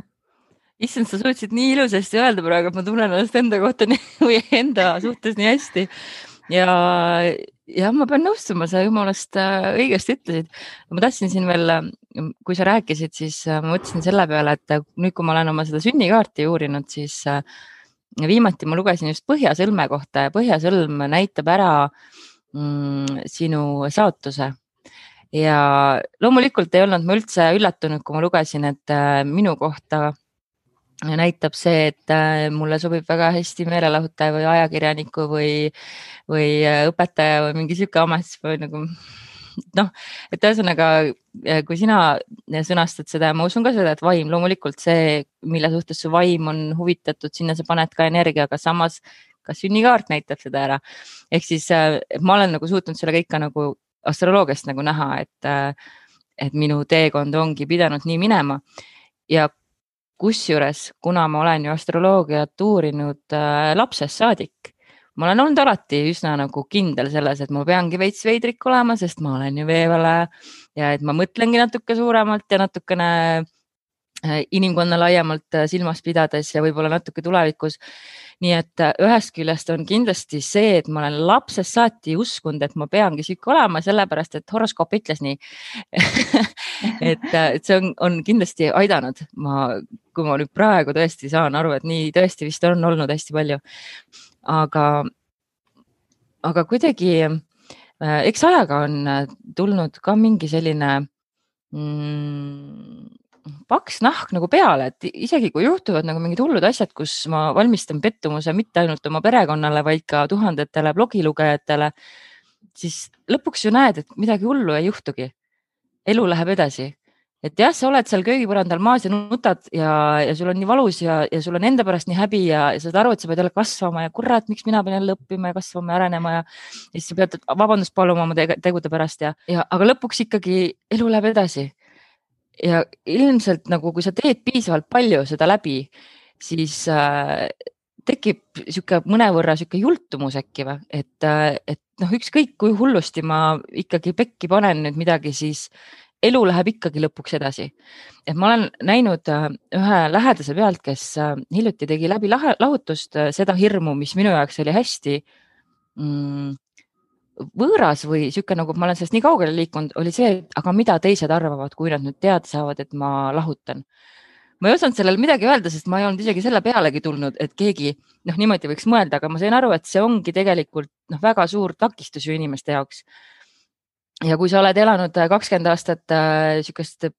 Issand, sa suutsid nii ilusasti öelda praegu, et ma tunnen ennast enda kohta või enda suhtes nii hästi. Ja ma pean nõustuma, sa jumalast õigesti ütlesid. Ma tahtsin siin veel, kui sa rääkisid, siis ma mõtlesin selle peale, et nüüd, kui ma olen oma seda sünnikaarti uurinud, siis viimati ma lugesin just põhjasõlme kohta ja põhjasõlm näitab ära sinu saatuse. Ja loomulikult ei olnud ma üldse üllatunud, kui ma lugesin, et minu kohta näitab see, et mulle sobib väga hästi meelelahutaja või ajakirjaniku või õpetaja või mingi siuke amet või nagu et ühesõnaga, kui sina sõnastad seda, ma usun ka seda, et vaim loomulikult see, mille suhtes su vaim on huvitatud, sinna sa paned ka energia, aga samas ka sünnikaart näitab seda ära. Ehk siis ma olen nagu suutnud selle kõik ka nagu astroloogiast nagu näha, et minu teekond ongi pidanud nii minema ja kusjuures, kuna ma olen ju astroloogiat uurinud lapsest saadik, ma olen olnud alati üsna nagu kindel selles, et ma peangi veits veidrik olema, sest ma olen ju veevale ja et ma mõtlengi natuke suuremalt ja natukene inimkonna laiemalt silmas pidades ja võib-olla natuke tulevikus. Nii et ühest küljest on kindlasti see, et ma olen lapsest saati uskunud, et ma peangi siuke olema, sellepärast et horoskoop ütles nii. et see on kindlasti aidanud. Kui ma nüüd praegu tõesti saan aru, et nii tõesti vist on olnud hästi palju. Aga kuidagi, eks ajaga on tulnud ka mingi selline paks nahk nagu peale, et isegi kui juhtuvad nagu mingid hullud asjad, kus ma valmistan pettumuse mitte ainult oma perekonnale, vaid ka tuhandetele blogilugejatele, siis lõpuks ju näed, et midagi hullu ei juhtugi. Elu läheb edasi. Et jah, sa oled seal köögipõrandal maas ja nutad ja sul on nii valus ja sul on enda pärast nii häbi ja sa saad aru, et sa pead jälle kasvama ja kurat, miks mina pean jälle õppima ja kasvama ja arenema ja siis sa pead vabandust paluma oma tegude pärast aga lõpuks ikkagi elu läheb edasi. Ja ilmselt nagu, kui sa teed piisavalt palju seda läbi, siis tekib siuke mõnevõrra siuke jultumus äkki või, et ükskõik kui hullusti ma ikkagi pekki panen nüüd midagi, siis elu läheb ikkagi lõpuks edasi. Et ma olen näinud ühe lähedase pealt, kes hiljuti tegi läbi lahutust seda hirmu, mis minu jaoks oli hästi võõras või siuke nagu ma olen sellest nii kaugele liikunud, oli see, et aga mida teised arvavad, kui nad nüüd teada saavad, et ma lahutan. Ma ei osanud sellele midagi öelda, sest ma ei olnud isegi selle pealegi tulnud, et keegi niimoodi võiks mõelda, aga ma sain aru, et see ongi tegelikult väga suur takistus ju inimeste jaoks. Ja kui sa oled elanud 20 aastat siukest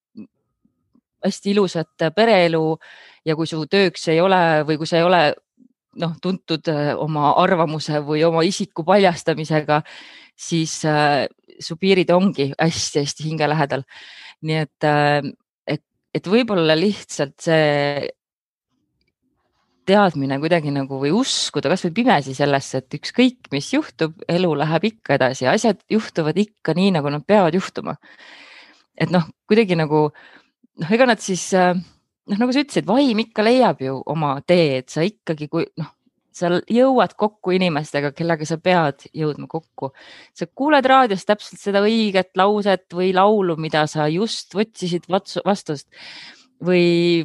hästi ilusat pereelu ja kui su tööks ei ole või kui sa ei ole tuntud oma arvamuse või oma isiku paljastamisega, siis su piirid ongi hästi-hästi hinge lähedal. Nii et võib-olla lihtsalt see teadmine kuidagi nagu või uskuda kas või pimesi sellesse, et ükskõik, mis juhtub, elu läheb ikka edasi, asjad juhtuvad ikka nii, nagu nad peavad juhtuma. Et kuidagi nagu, ega nad siis, nagu sa ütlesid, vaim ikka leiab ju oma tee, et sa ikkagi, kui sa jõuad kokku inimestega, kellega sa pead jõudma kokku. Sa kuuled raadios täpselt seda õiget lauset või laulu, mida sa just võtsisid vastust või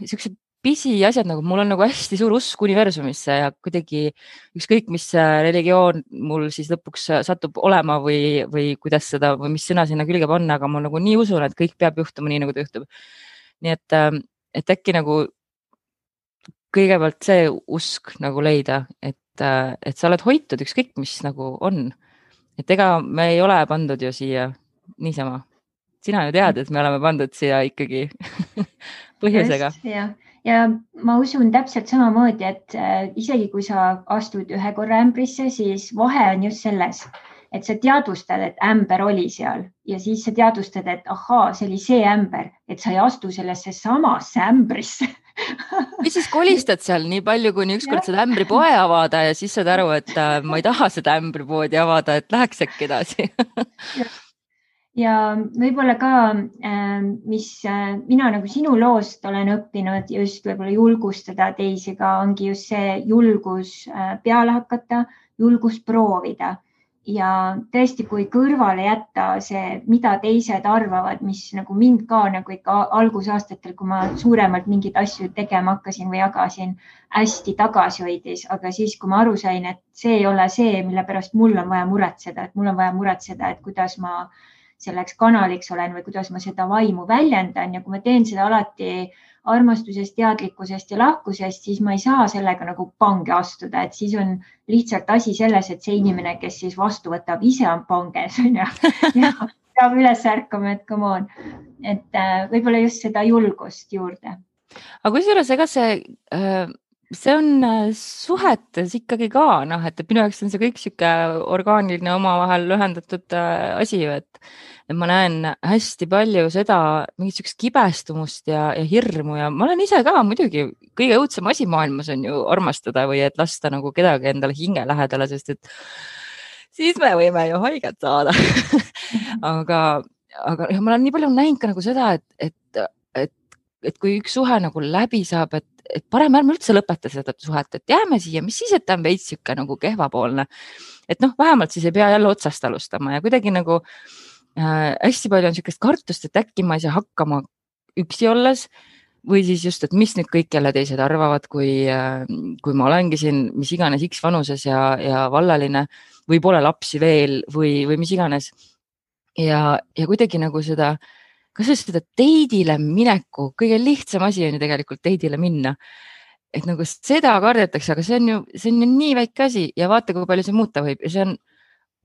siuksed pisiasjad nagu, mul on nagu hästi suur usk universumisse ja kuidagi ükskõik, mis religioon mul siis lõpuks satub olema või kuidas seda või mis sõna sinna külge panna, aga ma nagu nii usun, et kõik peab juhtuma nii, nagu ta juhtub. Nii et äkki nagu kõigepealt see usk nagu leida, et sa oled hoitud ükskõik, mis nagu on. Et ega me ei ole pandud ju siia niisama. Sina ju tead, et me oleme pandud siia ikkagi põhjusega. Ja ma usun täpselt samamoodi, et isegi kui sa astud ühe korra ämbrisse, siis vahe on just selles, et sa teadvustad, et ämber oli seal ja siis sa teadvustad, et ahaa, see oli see ämber, et sa ei astu sellesse samasse ämbrisse. Ja siis kolistad seal nii palju, kuni ükskord seda ämbripoe avada ja siis saad aru, et ma ei taha seda ämbripoodi avada, et läheks äkki edasi. Ja võib-olla ka, mis mina nagu sinu loost olen õppinud just võib-olla julgustada teisi ka, ongi just see julgus peale hakata, julgus proovida. Ja tõesti, kui kõrvale jätta see, mida teised arvavad, mis nagu mind ka nagu ikka algusaastatel, kui ma suuremalt mingeid asju tegema hakkasin või jagasin, hästi tagasi hoidis, aga siis, kui ma aru sain, et see ei ole see, mille pärast mul on vaja muretseda, et mul on vaja muretseda, et kuidas ma selleks kanaliks olen või kuidas ma seda vaimu väljendan ja kui ma teen seda alati armastusest, teadlikkusest ja lahkusest, siis ma ei saa sellega nagu pange astuda, et siis on lihtsalt asi selles, et see inimene, kes siis vastu võtab, ise on panges ja peab üles ärkama, et come on, et võib-olla just seda julgust juurde. Aga kusjuures, ega see on suhetes ikkagi ka, et minu jaoks on see kõik siuke orgaaniline omavahel ühendatud asi ju, et ma näen hästi palju seda mingit siukest kibestumust ja hirmu ja ma olen ise ka muidugi kõige õudsem asi maailmas on ju armastada või et lasta nagu kedagi endale hinge lähedale, sest et siis me võime ju haiget saada. aga ja ma olen nii palju näinud ka nagu seda, et kui üks suhe nagu läbi saab, et parem ärme üldse lõpeta seda suhet, et jääme siia, mis siis, et ta on veits siuke nagu kehvapoolne. Et vähemalt siis ei pea jälle otsast alustama ja kuidagi nagu hästi palju on siukest kartust, et äkki ma ei saa hakkama üksi olles või siis just, et mis nüüd kõik jälle teised arvavad, kui ma olengi siin mis iganes X vanuses ja vallaline või pole lapsi veel või mis iganes. Ja kuidagi nagu seda, kas seda teidile mineku, kõige lihtsam asi on ju tegelikult teidile minna. Et nagu seda kardetakse, aga see on ju nii väike asi ja vaata, kui palju see muuta võib ja see on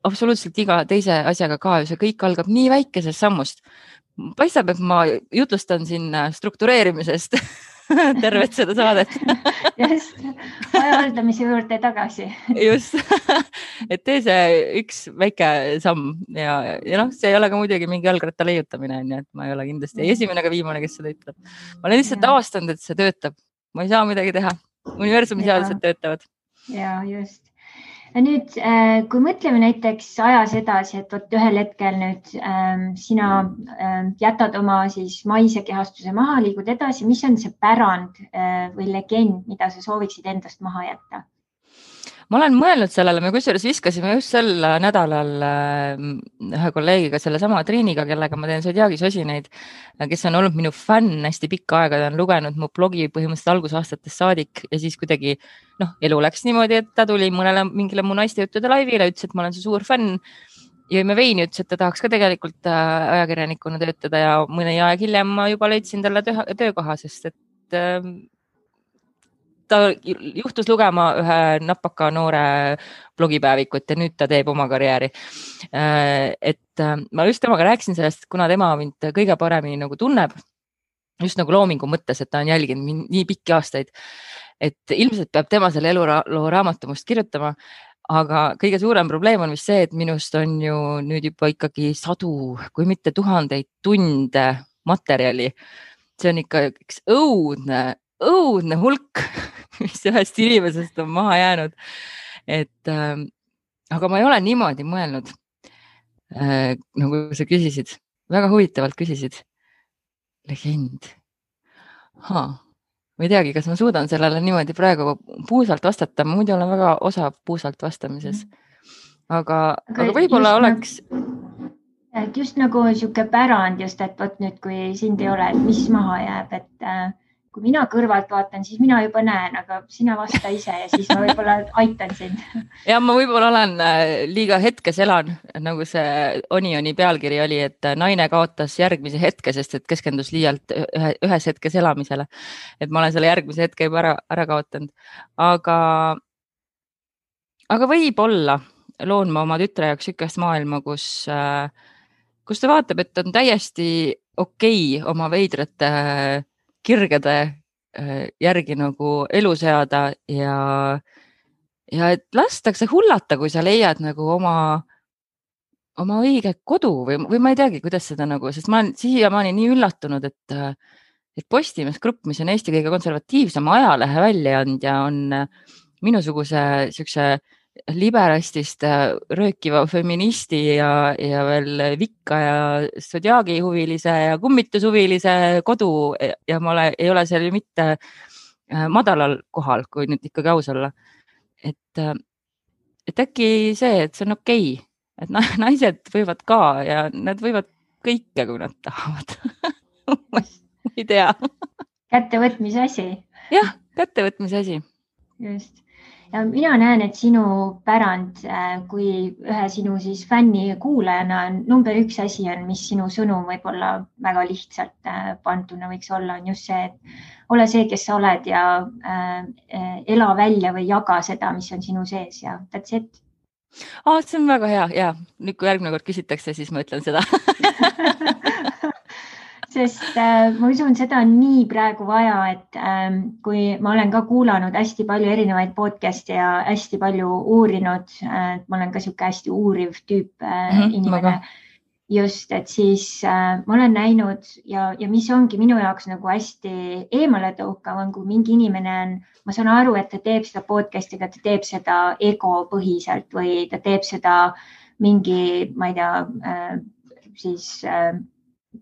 absoluutselt iga teise asjaga ka, see kõik algab nii väikesest sammust. Paistab, et ma jutlustan siin struktureerimisest tervet seda saadet. Just, aja haldamise juurde tagasi. Just, et tee see üks väike samm ja see ei ole ka muidugi mingi jalgratta leiutamine, et ma ei ole kindlasti esimene ega viimane, kes seda ütleb. Ma olen lihtsalt avastanud, et see töötab. Ma ei saa midagi teha. Universumi seadused töötavad. Ja, just. Ja nüüd, kui mõtleme näiteks ajas edasi, et ühel hetkel nüüd sina jätad oma siis maise kehastuse maha, liigud edasi, mis on see pärand või legend, mida sa sooviksid endast maha jätta? Ma olen mõelnud sellele, me kusjuures viskasime just sel nädalal ühe kolleegiga selle sama Triiniga, kellega ma teen Zodiaagi sosineid, kes on olnud minu fänn hästi pikka aega, ta on lugenud mu blogi põhimõtteliselt algusaastatest saadik ja siis kuidagi elu läks niimoodi, et ta tuli mingile mu naistejuttude laivile, ütles, et ma olen su suur fänn. Jõime veini, ütles, et ta tahaks ka tegelikult ajakirjanikuna töötada ja mõni aeg hiljem ma juba leidsin talle töökoha, sest et ta juhtus lugema ühe napaka noore blogipäevikut ja nüüd ta teeb oma karjääri. Et ma just temaga rääkisin sellest, kuna tema mind kõige paremini nagu tunneb, just nagu loomingu mõttes, et ta on jälginud nii pikki aastaid, et ilmselt peab tema selle eluloo raamatumust kirjutama, aga kõige suurem probleem on vist see, et minust on ju nüüd juba ikkagi sadu, kui mitte tuhandeid tunde materjali. See on ikka üks õudne hulk, mis ühest inimesest on maha jäänud. Aga ma ei ole niimoodi mõelnud, nagu sa küsisid. Väga huvitavalt küsisid. Legend. Ma ei teagi, kas ma suudan sellele niimoodi praegu puusalt vastata. Ma muidu olen väga osav puusalt vastamises. Aga võib-olla oleks... Just nagu siuke pärand just, et võt nüüd, kui sind ei ole, et mis maha jääb, et kui mina kõrvalt vaatan, siis mina juba näen, aga sina vasta ise ja siis ma võib-olla aitan sind. Ja ma võib-olla olen liiga hetkes elan, nagu see Onioni pealkiri oli, et naine kaotas järgmise hetke, sest et keskendus liialt ühes hetkes elamisele. Et ma olen selle järgmise hetke juba ära kaotanud. Aga võib-olla loon ma oma tütre jaoks sükest maailma, kus ta vaatab, et on täiesti okei oma veidrate kirgede järgi nagu elu seada ja et lastakse hullata, kui sa leiad nagu oma õige kodu või ma ei teagi, kuidas seda nagu, sest ma olen siiamaani nii üllatunud, et Postimees Grupp, mis on Eesti kõige konservatiivsem ajalehe väljaandja, on minusuguse siukse liberastist röökiva feministi ja veel vikka ja Zodiaagi huvilise ja kummitushuvilise kodu ja ma ei ole seal ju mitte madalal kohal, kui nüüd ikkagi aus olla. Et äkki see, et see on okei, et naised võivad ka ja nad võivad kõike, kui nad tahavad. Ma ei tea. Kättevõtmise asi. Jah, kättevõtmise asi. Just. Ja mina näen, et sinu pärand, kui ühe sinu siis fänni kuulajana number 1 asi on, mis sinu sõnum võib-olla väga lihtsalt pantuna võiks olla, on just see, et ole see, kes sa oled ja ela välja või jaga seda, mis on sinu sees ja that's it. See on väga hea ja nüüd, kui järgmine kord küsitakse, siis ma ütlen seda. Sest ma usun, seda on nii praegu vaja, et kui ma olen ka kuulanud hästi palju erinevaid podcast'e ja hästi palju uurinud, ma olen ka siuke hästi uuriv tüüp inimene. Just, et siis ma olen näinud ja mis ongi minu jaoks nagu hästi eemale tõukav on, kui mingi inimene on, ma saan aru, et ta teeb seda podcast'iga, ta teeb seda ego põhiselt või ta teeb seda mingi, ma ei tea, siis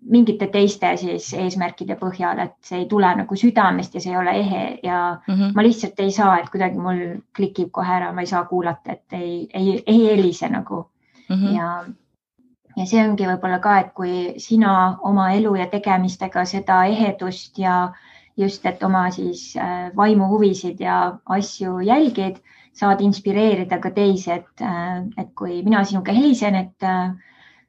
mingite teiste siis eesmärkide põhjal, et see ei tule nagu südamest ja see ei ole ehe ja ma lihtsalt ei saa, et kuidagi mul klikib kohe ära, ma ei saa kuulata, et ei helise nagu. Ja see ongi võib-olla ka, et kui sina oma elu ja tegemistega seda ehedust ja just, et oma siis vaimuhuvisid ja asju jälgid, saad inspireerida ka teisi, et kui mina sinuga helisen, et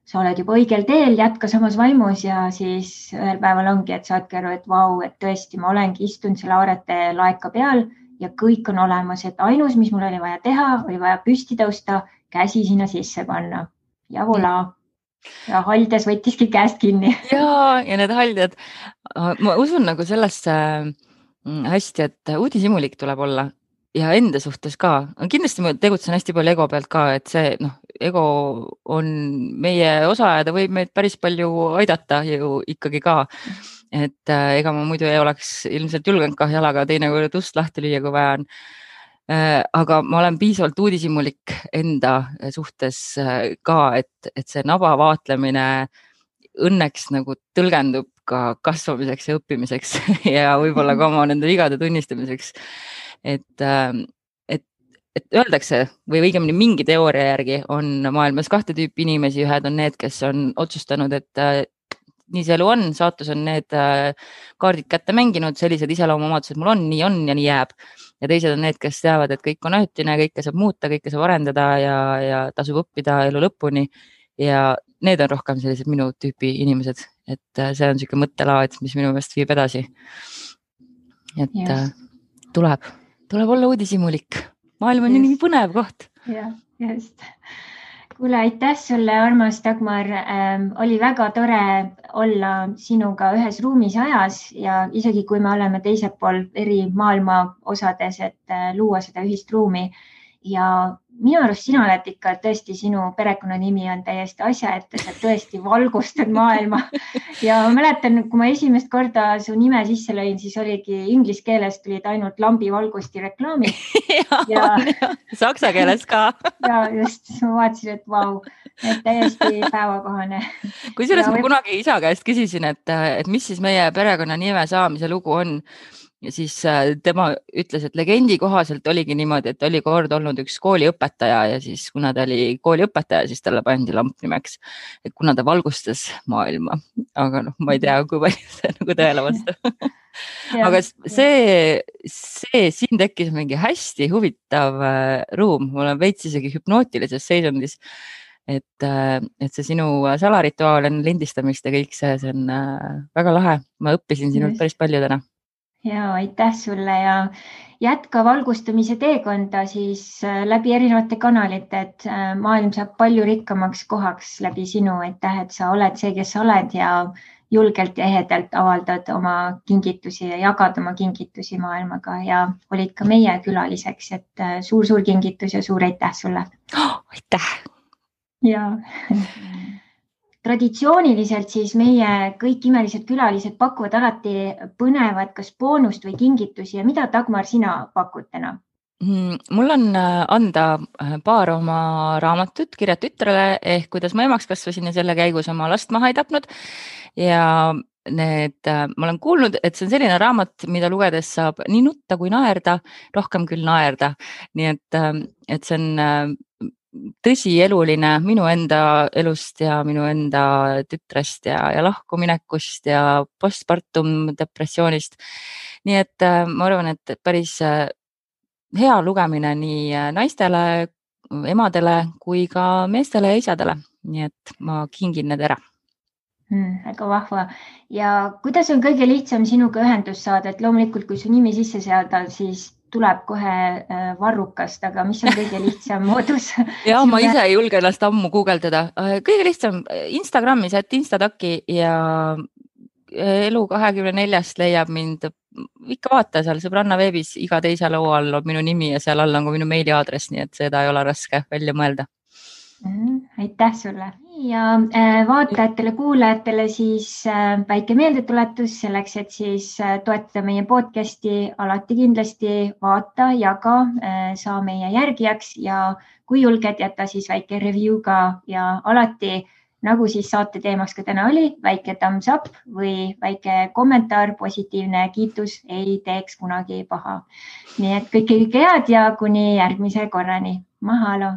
sa oled juba õigel teel, jätka samas vaimus ja siis ühel päeval ongi, et saadki aru, et vau, et tõesti, ma olengi istunud selle aarete laeka peal ja kõik on olemas, et ainus, mis mul oli vaja teha, oli vaja püsti tõusta, käsi sinna sisse panna ja voilà. Ja haldes võttiski käest kinni. Ja need haldjad, ma usun nagu sellesse hästi, et uudishimulik tuleb olla ja enda suhtes ka. Kindlasti ma tegutsen hästi palju ego pealt ka, et see ego on meie osa ja ta võib meid päris palju aidata ju ikkagi ka. Et ega ma muidu ei oleks ilmselt julgenud ka jalaga teinekord ust lahti lüüa, kui vaja on. Aga ma olen piisavalt uudishimulik enda suhtes ka, et see naba vaatlemine õnneks nagu tõlgendub ka kasvamiseks ja õppimiseks ja võib-olla ka oma nende vigade tunnistamiseks. Et öeldakse või õigemini mingi teooria järgi on maailmas 2 tüüpi inimesi, ühed on need, kes on otsustanud, et nii see elu on, saatus on need kaardid kätte mänginud, sellised iseloomuomadused mul on ja nii jääb. Ja teised on need, kes teavad, et kõik on ajutine, kõike saab muuta, kõike saab arendada ja tasub õppida elu lõpuni. Ja need on rohkem sellised minu tüüpi inimesed, et see on selline mõttelaad, mis minu meelest viib edasi. Et tuleb olla uudishimulik. Maailm on nii põnev koht. Jah, just. Kuule, aitäh sulle, armas Dagmar. Oli väga tore olla sinuga ühes ruumis ajas ja isegi kui me oleme teisel pool eri maailma osades, et luua seda ühist ruumi. Ja minu arust sina oled ikka tõesti, sinu perekonnanimi on täiesti asjaettes, et tõesti valgustad maailma. Ja ma mäletan, kui ma esimest korda su nime sisse lõin, siis oligi inglise keeles tulid ainult lambivalgusti reklaamid. ja saksa keeles ka. Ja just, ma vaatasin, et vau, et täiesti päevakohane. Kusjuures ma kunagi isa käest küsisin, et mis siis meie perekonnanime saamise lugu on. ja siis tema ütles, et legendi kohaselt oligi niimoodi, et oli kord olnud üks kooliõpetaja ja siis kuna ta oli kooliõpetaja, siis talle pandi lamp nimeks, et kuna ta valgustas maailma, aga noh, ma ei tea, kui palju see nagu tõele vastab. Aga siin tekkis mingi hästi huvitav ruum, ma olen veits isegi hüpnootilises seisundis, et see sinu salarituaal enne lindistamist ja kõik see on väga lahe. Ma õppisin sinult päris palju täna. Ja aitäh sulle ja jätka valgustamise teekonda siis läbi erinevate kanalite, et maailm saab palju rikkamaks kohaks läbi sinu. Aitäh, et sa oled see, kes sa oled ja julgelt ja ehedalt avaldad oma kingitusi ja jagad oma kingitusi maailmaga ja olid ka meie külaliseks, et suur-suur kingitus ja suur aitäh sulle. Aitäh! Ja traditsiooniliselt siis meie kõik imelised külalised pakuvad alati põnevat kas boonust või kingitusi ja mida, Dagmar, sina pakud täna? Mul on anda paar oma raamatut Kirjad tütrele ehk kuidas ma emaks kasvasin ja selle käigus oma last maha ei tapnud. Ja ma olen kuulnud, et see on selline raamat, mida lugedes saab nii nutta kui naerda, rohkem küll naerda. Nii et see on tõsieluline minu enda elust ja minu enda tütrest ja lahkuminekust ja postpartum depressioonist. Nii et ma arvan, et päris hea lugemine nii naistele, emadele kui ka meestele ja isadele. Nii et ma kingin need ära. Väga vahva. Ja kuidas on kõige lihtsam sinuga ühendust saada, et loomulikult, kui su nimi sisse seada, siis tuleb kohe varrukast, aga mis on kõige lihtsam moodus? Ja ma ise ei julge ennast ammu guugeldada. Kõige lihtsam Instagramis, et Instataki ja Elu24 leiab mind. Ikka vaata seal sõbranna veebis, iga teise loo all on minu nimi ja seal all on ka minu meiliaadress, nii et seda ei ole raske välja mõelda. Aitäh sulle ja vaatajatele, kuulajatele siis väike meeldetuletus selleks, et siis toetada meie podcasti, alati kindlasti vaata, jaga, saa meie järgijaks ja kui julged, jätta siis väike review ka ja alati, nagu siis saate teemaks ka täna oli, väike thumbs up või väike kommentaar, positiivne kiitus ei teeks kunagi paha. Nii et kõike head ja kuni järgmise korrani. Mahalo!